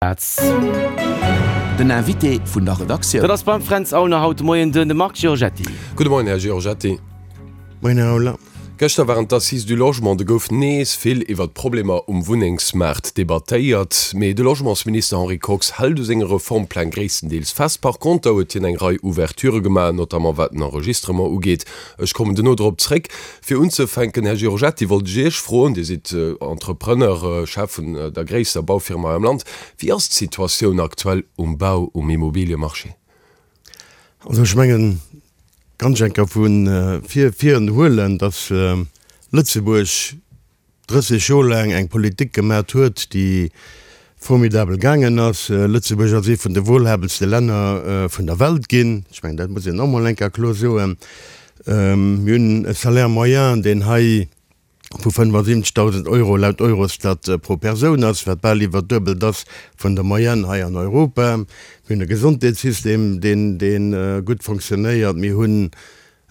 Den Invité vun der Redaktioun. Dat ass beim Fränz Aulner haut de Moien de Marc Giorgetti. Gudde Moien, Här Giorgetti. Moien, Här Aulner. Gëschter waren d'Assises du Logement. Do gouf nees vill iwwer d'Problemer um Wunnengsmaart debattéiert. Mee de Logementsminister Henri Kox hält u senge Reformpläng gréisstendeels fest. Par conter huet hien eng Rei Ouverturë gemaach, notamment wat den Enregistrement ugeet. Ech kommen duerno drop zréck. Fir unzefänken, Här Giorgetti, wollt ech Iech froen, Dir sidd Entrepreneur, Chef vun der gréisster Baufirma hei am Land, Wéi ass d'Situatioun aktuell um Bau, um Immobiliemarché? Also ech mengen, ganz enker vu vir vir huelen, datt Lëtzebuerg 30 Joer laang eng Politik gemat huet, déi formidabel gaangen ass. Lëtzebuerg ass ee vun de wohlhabendste Länner vun der Welt ginn. Ech mengen, dat muss een och mol eng Kéier kloer soen. Mir hunn e Salaire moyen, deen hei vu 75.000 Euro laut Eurostat pro Persoun ass, wat bal iwwer d'Duebelt ass vun der Moyenne hei an Europa. Mir hunn e Gesondheetssystem, deen, dee gutt fonctionnéiert. Mir hunn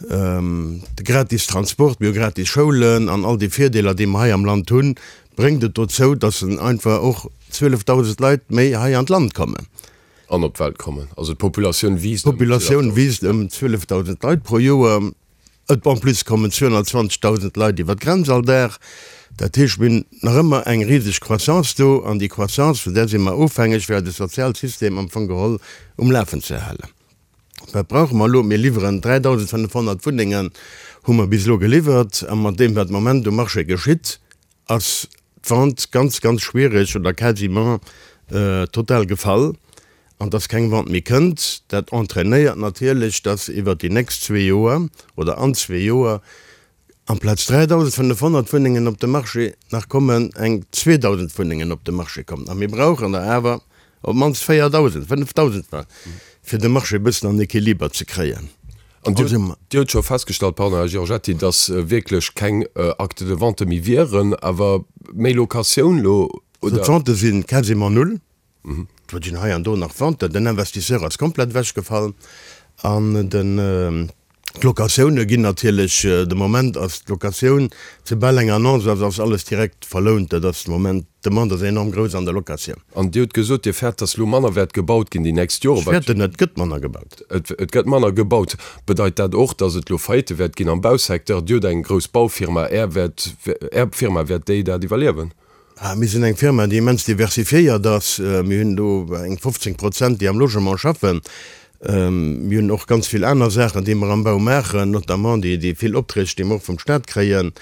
De gratis Transport, mir hu gratis Schoulen an all déi Virdeeler, déi mer hei am Land hunn, bréngt et dozou, dass einfach och 12.000 Leit méi hei an d'Land kommen. An op d'Welt kommen. Also d'Populatioun wiisst ëm 12.000. D'Populatioun wiisst ëm 12.000 Leit pro Joer. Et en plus kommen 220.000 Leit iwwer d'Grenz all Dag. Dat heescht, mir hunn nach ëmmer eng riseg Croissance do an déi Croissance, vun där si mer ofhängeg, fir eise Sozialsystem am Fong geholl um Lafen ze halen. Wat brauche mer elo? Mir liwweren 3.500 Wunnengen, hu mer bis elo geliwwert. A mat deem, wat de Moment um Marché geschitt, ass d'Vente ganz, ganz schwierig oder quasiment total gefall. An dass keng Vente méi kënnt, dat entrainéiert natierlech, dass iwwert déi nächst zwee Joer oder an zwee Joer Amplaz 3.500 Wunnengen op de Marché nach kommen eng 2.000 Wunnengen op de Marché kommen. A mir brauchen der awer op d'mannst 4.000, 5.000, fir de Marché e bëssen an Equiliber ze kréien. An Dir hutt scho festgestallt, pardon, Här Giorgetti, datt wierklech keng Actes de vente méi wieren, awer méi Locatioun elo, oder? D'Vente si quasiment null. Et ginn hei an do nach Venten. Den Investisseur ass komplett ewechgefall an den d'Locatioune ginn natierlech, de Moment ass d'Locatioun, soubal eng Annonce ass, ass alles direkt verlount. Dat ass de Moment, d'Demande ass enorm grouss an der Locatioun. An Dir hutt gesot, Dir fäert, datt elo manner wäert gebaut ginn déi nächst Joren. Ech fäerten net, et gëtt manner gebaut. Et gëtt manner gebaut. Bedeit dat och, datt et elo Faillite wäert ginn am Bausecteur? Dir hutt eng grouss Baufirma, Är wäert, Är Firma, wäert déi dat iwwerliewen? Mir sinn eng Firma, déi immens diversifiéiert ass. Mir hunn do eng 15 Prozent, déi am Logement schaffen. Mir hunn och ganz vill aner Saachen, déi mer am Bau maachen, notamment déi vill Opträg, déi mer och vum Stat kréien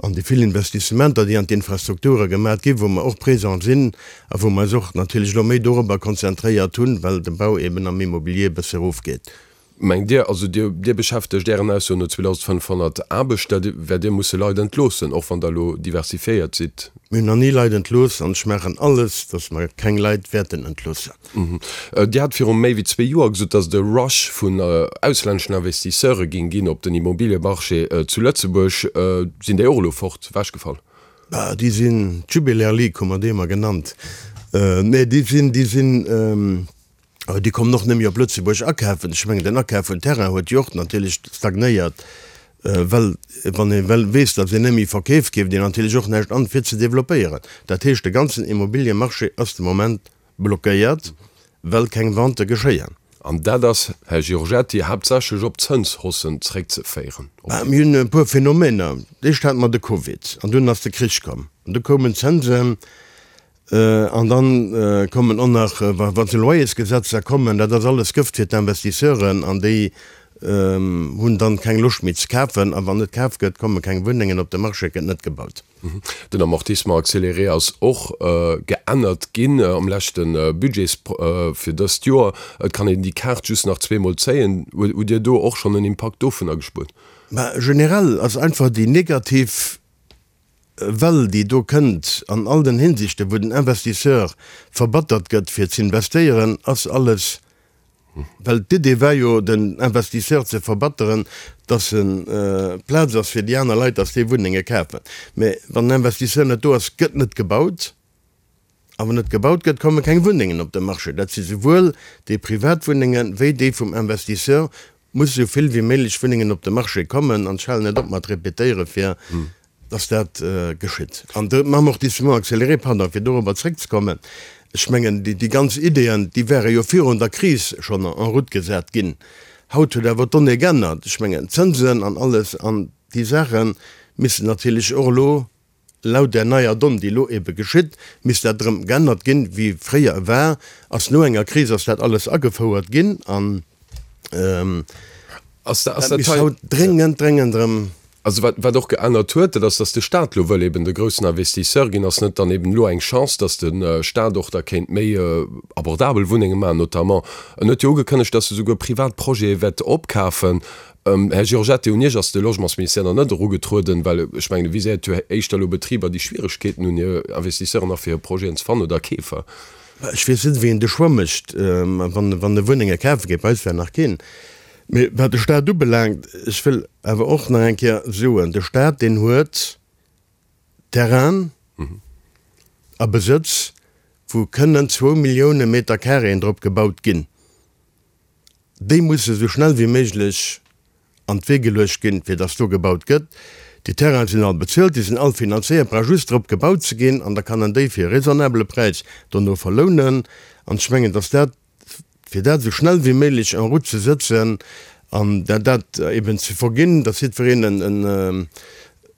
an déi vill Investissementer, déi an d'Infrastrukture gemat ginn, wou mer och présent sinn a wou mer eis och natierlech elo méi dorobber konzentréiert hunn, well de Bau eben am Immobilier e bësse erofgeet. Mengt Dir, also Dir, Dir beschäftegt Ären Aussoen no 2.500 Aarbechter, wäert Dir musse Leit entloossen, och wann Der elo diversifiéiert sidd? Mir hunn nach ni Leit entlooss an ech maachen alles, datt mer keng Leit wäerten entloossen. Dir hat viru méi wéi zwee Joer gesot, datt et e Rush vun auslänneschen Investisseure géing ginn op den Immobiliemarché zu Lëtzebuerg. Sinn déi och elo fort, ewechgefall? Déi sinn, d'Jubiläer League hu mer déi ëmmer genannt, nee déi sinn, déi sinn, Awer déi kommen och net méi op Lëtzebuerg akafen. Ech mengen, den Akaf vun Terrain huet jo och natierlech stagnéiert, well wann ee well weess, datt een net méi verkeeft, keeft een natierlech och näischt an, fir ze developpéieren. Dat heescht, de ganzen Immobiliemarché ass de Moment blockéiert, well keng Vente geschéien. An dat ass, Här Giorgetti, haaptsächlech op d'Zënshaussen zréckzeféieren? Mir hunn e puer Phänomener. D'éischt hate mer de Covid an dunn ass de Krich komm an du koumen d'Zënsen. An dann kommen och nach, wa se Loyersgesetzer kommen, dat ass alles Gëft fir d'Investisseuren an déi hunn dann keng Loscht méi ze kafen. A wann net kaf gëtt, komme keng Wunnengen op de Marché, gëtt net gebaut. Den Amortissement accéléré ass och geännert ginn am leschte Budget fir dëst Joer. Et kann een déi Kaart just nach zweemol zéien. Hutt Dir do och schonn en Impakt dovunner gespuert? Mä generell ass einfach déi negativ Well déi do kënnt an all den Hinsichten, wou den Investisseur verbattert gëtt fir z'investéieren, ass alles, well d'Idee war jo den Investisseur ze verbatteren, dass e Plaz ass fir déi aner Leit, dass déi Wunnenge kafen. Mä wann den Investisseur net do ass, gëtt net gebaut. A wann net gebaut gëtt, komme keng Wunnengen op de Marché. Dat si souwuel déi privat Wunnenge wéi déi vum Investisseur. Muss esou vill wéi méiglech Wunnengen op de Marché kommen. An ech halen net op mat repetéiere fir dass dat geschitt. An de Amortissement accéléré, pardon, fir dorobber zréckzekommen. Ech mengen, déi ganz Ideeën, déi wäre jo virun der Kris schonn en route gesat ginn. Haut huet awer d'Donnée geännert. Ech mengen, d'Zënsen an alles an déi Saache missten natierlech och elo laut där neier Donne, déi elo ebe geschitt, misst dat erëm geännert ginn, wéi fréier e war. Ass no enger Kris ass dat alles agefouert ginn an dat misst haut dréngend, dréngend erëm. Also wat, wat och geännert huet, dat ass, dass de Stat elo wëll eben de groussen Investisseur ginn. Ass net dann eben elo eng Chance, dass de Stat och da kéint méi abordabel Wunnenge maachen notamment? En huet jo ugekënnegt, dass e souguer privat Projete wäert opkafen. Här Giorgetti, un Iech ass de Logementsministère nach net erugetrueden, well ech mengen, e viséiert jo éischter elo Betriber, déi Schwieregkeeten hunn, hir Investisseuren nach fir hir Projeten ze fannen oder Keefer. Ech weess net, wéi een de Choix mécht, wann, wann e Wunnenge kafe geet. Bei eis war nach keen. Mee wat de Stat ubelaangt, ech wëll awer och nach eng Kéier soen, de Stat, deen huet Terrainen a Besëtz, wou kënnen zwou Millioune Meter Carréen drop gebaut ginn. Déi musse sou schnell wéi méiglech an d'Wee geluecht ginn, fir dass do gebaut gëtt. Déi Terrainen sinn all bezuelt, déi sinn all finanzéiert, brauch just drop gebaut ze ginn an da kann en déi fir e raisonnabele Präis dono verlounen. An ech mengen, dass dat fir dat esou schnell wéi méiglech en route ze sëtzen an dat eben ze verginn, datt jiddwereen en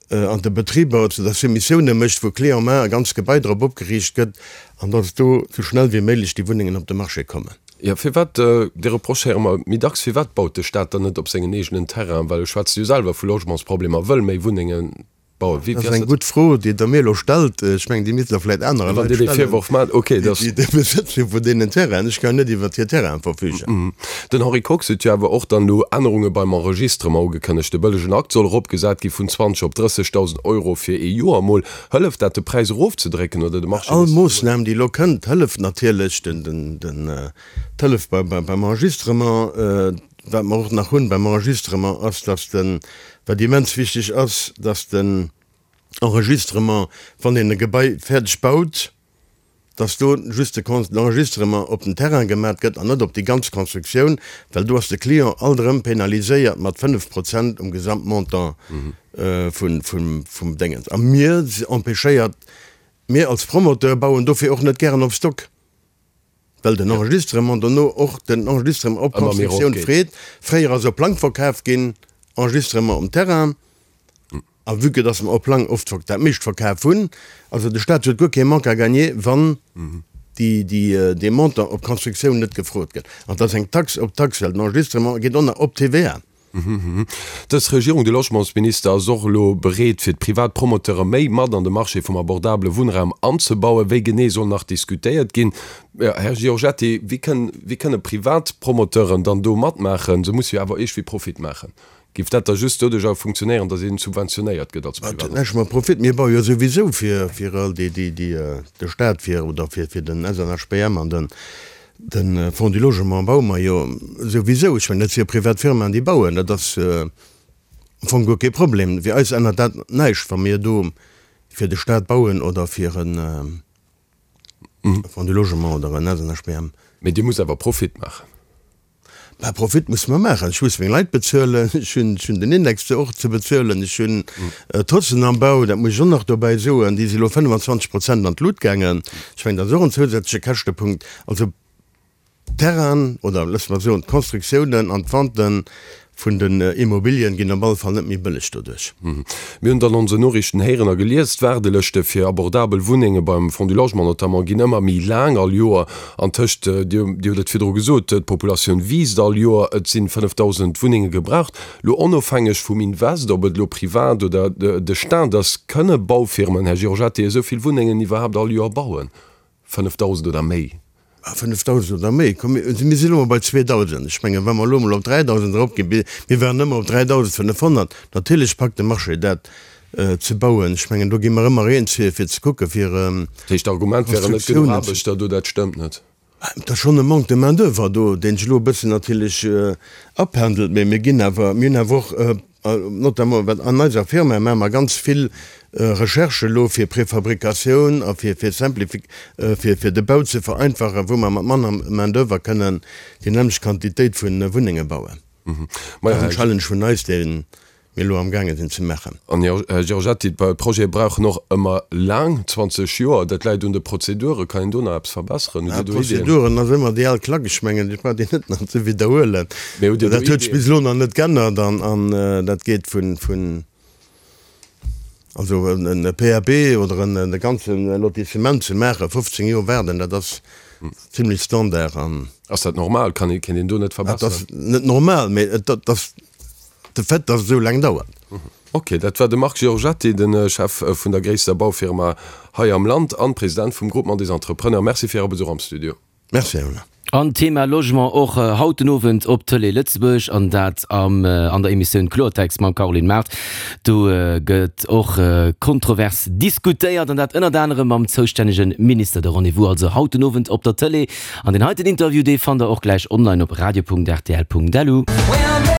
an de Betriber zu der Soumissioune mécht, wou clé en main e ganzt Gebai drop opgeriicht gëtt an datt do esou schnell wéi méiglech déi Wunnengen op de Marché kommen. Jo, firwat, dee Reproche héiere mer méi dacks, firwat baut de Staat dann net op sengen eegenen Terrainen? Well e schwätzt jo selwer vu Logementsproblemer, wëll méi Wunnengen Bauen. Wéi, Dat ass eng gutt Fro, déi Der mir elo stellt. Ech mengen, déi misst Der vläicht anere Leit stellen, déi de Besëtz hu vun deenen Terrainen. Ech kann jo net iwwert hir Terrainen verfügen. Den Henri Kox huet jo awer och dann elo Ännerunge beim Enregistrement ugekënnegt. De bëllegen Akt soll eropgesat gi vun 20 op 30.000 Euro fir ee Joer emol. Hëlleft dat, de Präis erofzedrécken oder de Marché All nees ze berouegen? Moossnam, déi elo kënnt, hëlleft natierlech. D'Hëllef beim Enregistrement. Wat mer och nach hunn beim Enregistrement ass, dass den, wat immens wichteg ass, dass den Enregistrement, wann een e Gebai fäerdeg baut, dass do just de Enregistrement op den Terrain gemat gëtt an net op déi ganz Constructioun, well do ass de Client alt erëm penaliséiert mat 5 Prozent um Gesamtmontant vum Déngens. A mir empêchéiert, mir als Promoteur bauen dofir och net gären op Stock. Well den Enregistrement dono och den Enregistrement op Constructioun freet. Fréier ass op Plang verkaf ginn, Enregistrement um Terrain. A vue que dass mer op Plang oft dat meescht verkaf hunn, also de Staat huet guer kee Manque à gagner, wann dee Montant op Constructioun net gefrot gëtt. An et ass eng Taxe op d'Taxe, well den Enregistrement geet och nach op d'TVA. Dës Regierung, de Logementsminister ass och elo bereet, fir d'privat Promoteure méi mat an de Marché vum abordabele Wunnraum anzebauen. Wéi genee soll nach diskutéiert ginn. Här Giorgetti, wéi kënn, wéi kënne privat Promoteuren dann do matmaachen? Se musse jo awer iergwéi Profit maachen. Géif dat da just doduerch awer funktionéieren, datt een subventionéiert gëtt als Privat? Dat huet näischt mat Profit. Mir baue jo souwisou fir, fir all déi, déi, déi de Staat fir oder fir, fir den SNHBM an den, De Fonds du Logement baue mer jo souwisou. Ech mengen, dat si jo privat Firmaen, déi bauen. Dat ass am Fong guer kee Problem. Fir eis ännert dat näischt, wa mir do fir de Staat bauen oder fir e Fonds du Logement oder en SNHBM. Mee Dir musst awer Profit maachen. Mä Profit musse mer maachen. Ech muss meng Leit bezuelen, ech hunn den Index do och ze bezuelen, ech hunn d'Hossen am Bau, dat muss ech och nach dobäi soen, déi si elo 25 Prozent an d'Lut gaangen. Ech mengen, dat ass och en zousätzleche Käschtepunkt. Also d'Terrainen oder loosse mer soen d'Constructiounen an d'Venten vun den Immobilien ginn op alle Fall net méi bëlleg doduerch. Mir hunn et an onsen Noriichten héieren a gelies, d'Waardelëschte fir abordabel Wunnenge beim Fonds du Logement notamment ginn ëmmer méi laang all Joer. An tëscht, Dir hutt et virdru gesot, d'Populatioun wiisst all Joer, et sinn 5.000 Wunnenge gebraucht. Lo onofhängeg vum Invest, ob et elo privat oder de Staat ass, kënne Baufirmen, Här Giorgetti, esou vill Wunnengen iwwerhaapt all Joer bauen? 5.000 oder méi? Ah, 5.000 oder méi? Komm, mir sinn elo mol bei 2.000. Ech mengen, wa mer elo mol op 3.000 eropginn, mir waren ëmmer op 3.500, natierlech packt de Marché dat ze bauen. Ech mengen, do gi mer ëmmer eens, fir ze kucken, fir Dat heescht, d'Argument wären net genuch Aarbechter do, dat stëmmt net? Et ass schonn e Manque de main d'oeuvre do, deen sech elo e bëssen natierlech apendelt, mä mir ginn awer, mir hunn awer och, notamment wat an eiser Firma maache mer ganz vill Recherche elo fir Préfabricatioun a fir fir Simplifi fir fir de Bau ze vereinfachen, wou mer mat manner Main d'oeuvre kënnen déi nämmlecht Quantitéit vu Wunnenge bauen. Dat ass en Challenge vun eis, dee. mir elo amgaange sinn ze maachen. An, Här Giorgetti, d'Projete brauchen och ëmmer laang, 20 Joer. Dat läit un de Prozeduren. Kann een do nach eppes verbesseren? Hutt Dir do Iddien? Prozeduren ass ëmmer déi al Klack. Ech mengen, ech brauch déi net nach ze widderhuelen. Mee hutt Dir do Dat huet sech Iddien? bis elo nach net g'ännert an dat geet vun, also e PAP oder e ganze Lotissement ze maachen, 15 Joer waarden, dat ass zimlech Standard. An. Ass dat normal? Kann een, kéint een do net verbesseren? Dat ass net normal, mee et ass de Fait, dass et esou laang dauert. Ok, dat war de Marc Giorgetti, de Chef vun der gréisster Baufirma hei am Land an President vum Groupement des Entrepreneurs. Merci fir Äre Besuch am Studio. Merci, Här Muller. An Thema Logement och haut den Owend op Tëlee Lëtzebuerg, an dat am an der Emissioun Kloertext mam Caroline Mart. Do gëtt och kontrovers diskutéiert, an dat ënnert anerem mam zoustännege Minister. De Rendez-vous also haut den Owend op der Tëlee. An deen heiten Interview, dee fannt der och gläich online op radio.rtl.lu.